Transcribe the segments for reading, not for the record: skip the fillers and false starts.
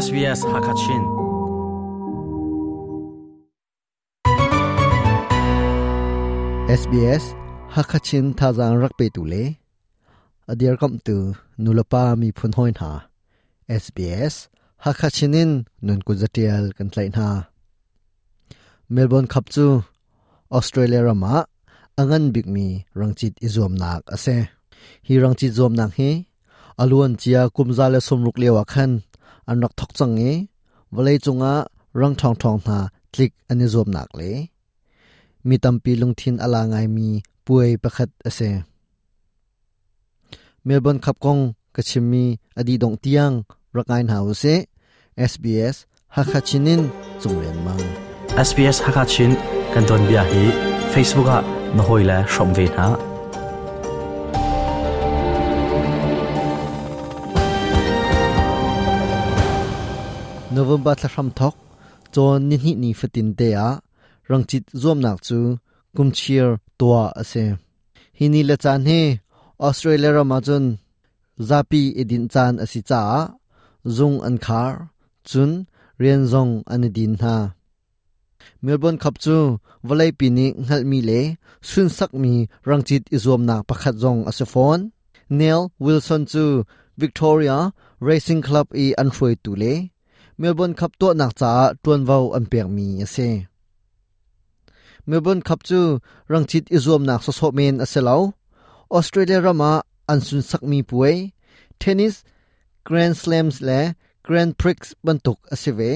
SBS Hakachin. SBS Hakachin thazaang rak petu le a dirkamhtu nulepa miphun hawi hna SBS Hakachin in nun kut zatial kan tlaih hna. Melbourne Cup cu Australia ram ah a ngan bikmi rangcit i zuamnak a si. Hi rangcit zuamnak hi a luan cia kum 160 lio ah khan an rak thok cang i vawlei cungah rang ṭhawngṭhawng hna tlik an i zuamnak le mi tampi lungthin a la ngaimi puai pakhat a si. Melbourne Cup kong ka chimmi a dih dongh tiang rak ngai hna usih. SBS Hakha Chin in Cunglian Mang. SBS Hakha Chin kan tuanbia hi Facebook ah na hawile hrawm ve hna. November thla hram thok cawn nihnih ni fatin te ah rangcit zuamnak cu kumchir tuah a si. Hi ni le caan hi Australia ram ahcun zapi i dinh caan a si caah zung an khar, cun rian zong an i din hna. Melbourne Cup cu vawleipi nih hngalhmi le sunsakmi rangcit i zuamnak pakhat zong a si fawn. Neil Wilson cu Victoria Racing Club i an hruaitu le Melbourne Cup tuahnak caah ṭuanvo an pekmi a si. Melbourne Cup cu rangcit i zuamnak sawsawh men a si lo. Australia ram ah an sunsakmi puai, tennis Grand Slams le Grand Prix bantuk a si ve.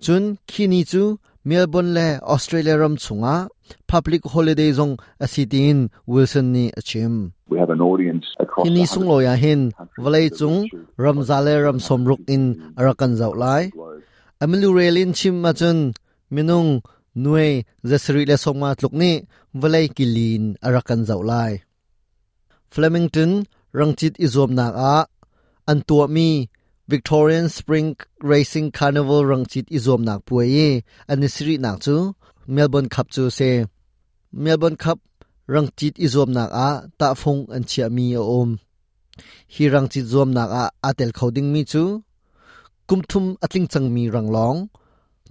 Cun khi ni cu Melbourne le Australia ram chungah public holiday zong a si tiin Wilson nih a chim. Hi ni sunglawi ah hin vawleicung ramza le ram sawmruk in a rak kan zoh lai. A milurel in chim ahcun minung nuai zasarih le sawmnga tluk nih vawlei kilin a rak kan zoh lai. Flemington rangcit i zuamnak ah an tuahmi Victorian Spring Racing Carnival rangcit i zuamnak puai i an i sarihnak cu Melbourne Cup cu a si. Melbourne Cup rangcit i zuamnak ah tahfung an chiahmi a um. Hi rangcit zuamnak ah aa tel kho dingmi cu kum thum a tling cangmi ranglawng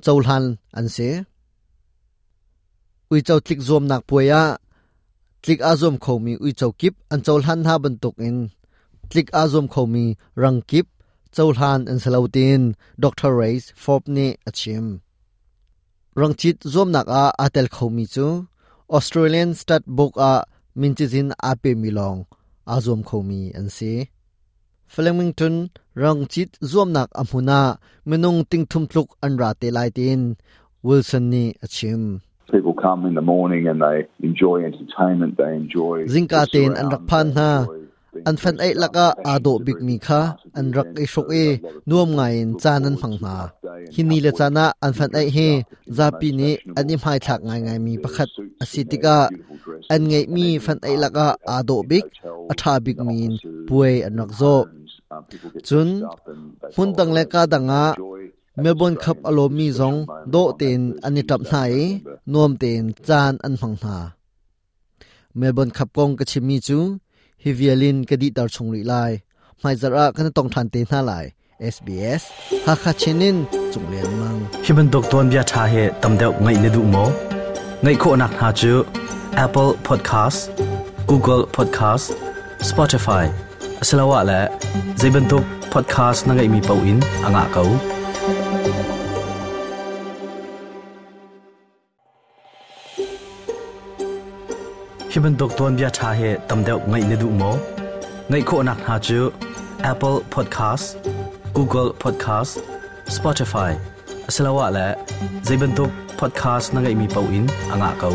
cohlan an si. Uico tlik zuamnak puai ah tlik aa zuam khomi uico kip an cohlan hna bantukin tlik aa zuam khomi rang kip cohlan an si lo tiin Dr. Race Forbes nih a chim. Rangcit zuamnak ah aa tel khomi cu Australian Stud Book ah min cizin aa pemi lawng aa zuam khomi an si. Flemington rangcit zuamnak a hmun ah minung tingthum tluk an ra te lai tiin Wilson nih a chim. People come in the morning and they enjoy entertainment, they enjoy Zingka tein an rak phan hna. An fan eih lakah aa dawh bikmi kha an rak i hruk i nuam ngaiin caan an hmang hna. Hi ni le caan ah an fan eih hi zapi nih an i hmaithlak ngaingaimi pakhat a si tikah an ngeihmi fan eih lakah aa dawh bik, a ṭha bikmi in puai an rak zawh. Cun hmun dang le ka dang ah Melbourne Cup a lawmmi zong dawh tein an i ṭamh hna i nuam tein caan an hmang hna. Melbourne Cup kong ka chimmi cu hi vial in ka dihter chung rih lai. Hmaizarh ah kan tong ṭhan te hna lai. SBS Hakha Chin in Cung Lian Mang. Hi bantuk tuanbia ṭha hi tam deuh ngaih na duh maw? Ngaih khawhnak hna cu Apple Podcast, Google Podcast, Spotify asiloah le zei bantuk podcast na ngeihmi paoh in a ngah ko. Hi bantuk tuanbia ṭha hi tam deuh ngaih na duh maw? Ngaih khawhnak hna cu Apple Podcast, Google Podcast, Spotify asiloah le zei bantuk podcast na ngeihmi paoh in a ngah ko.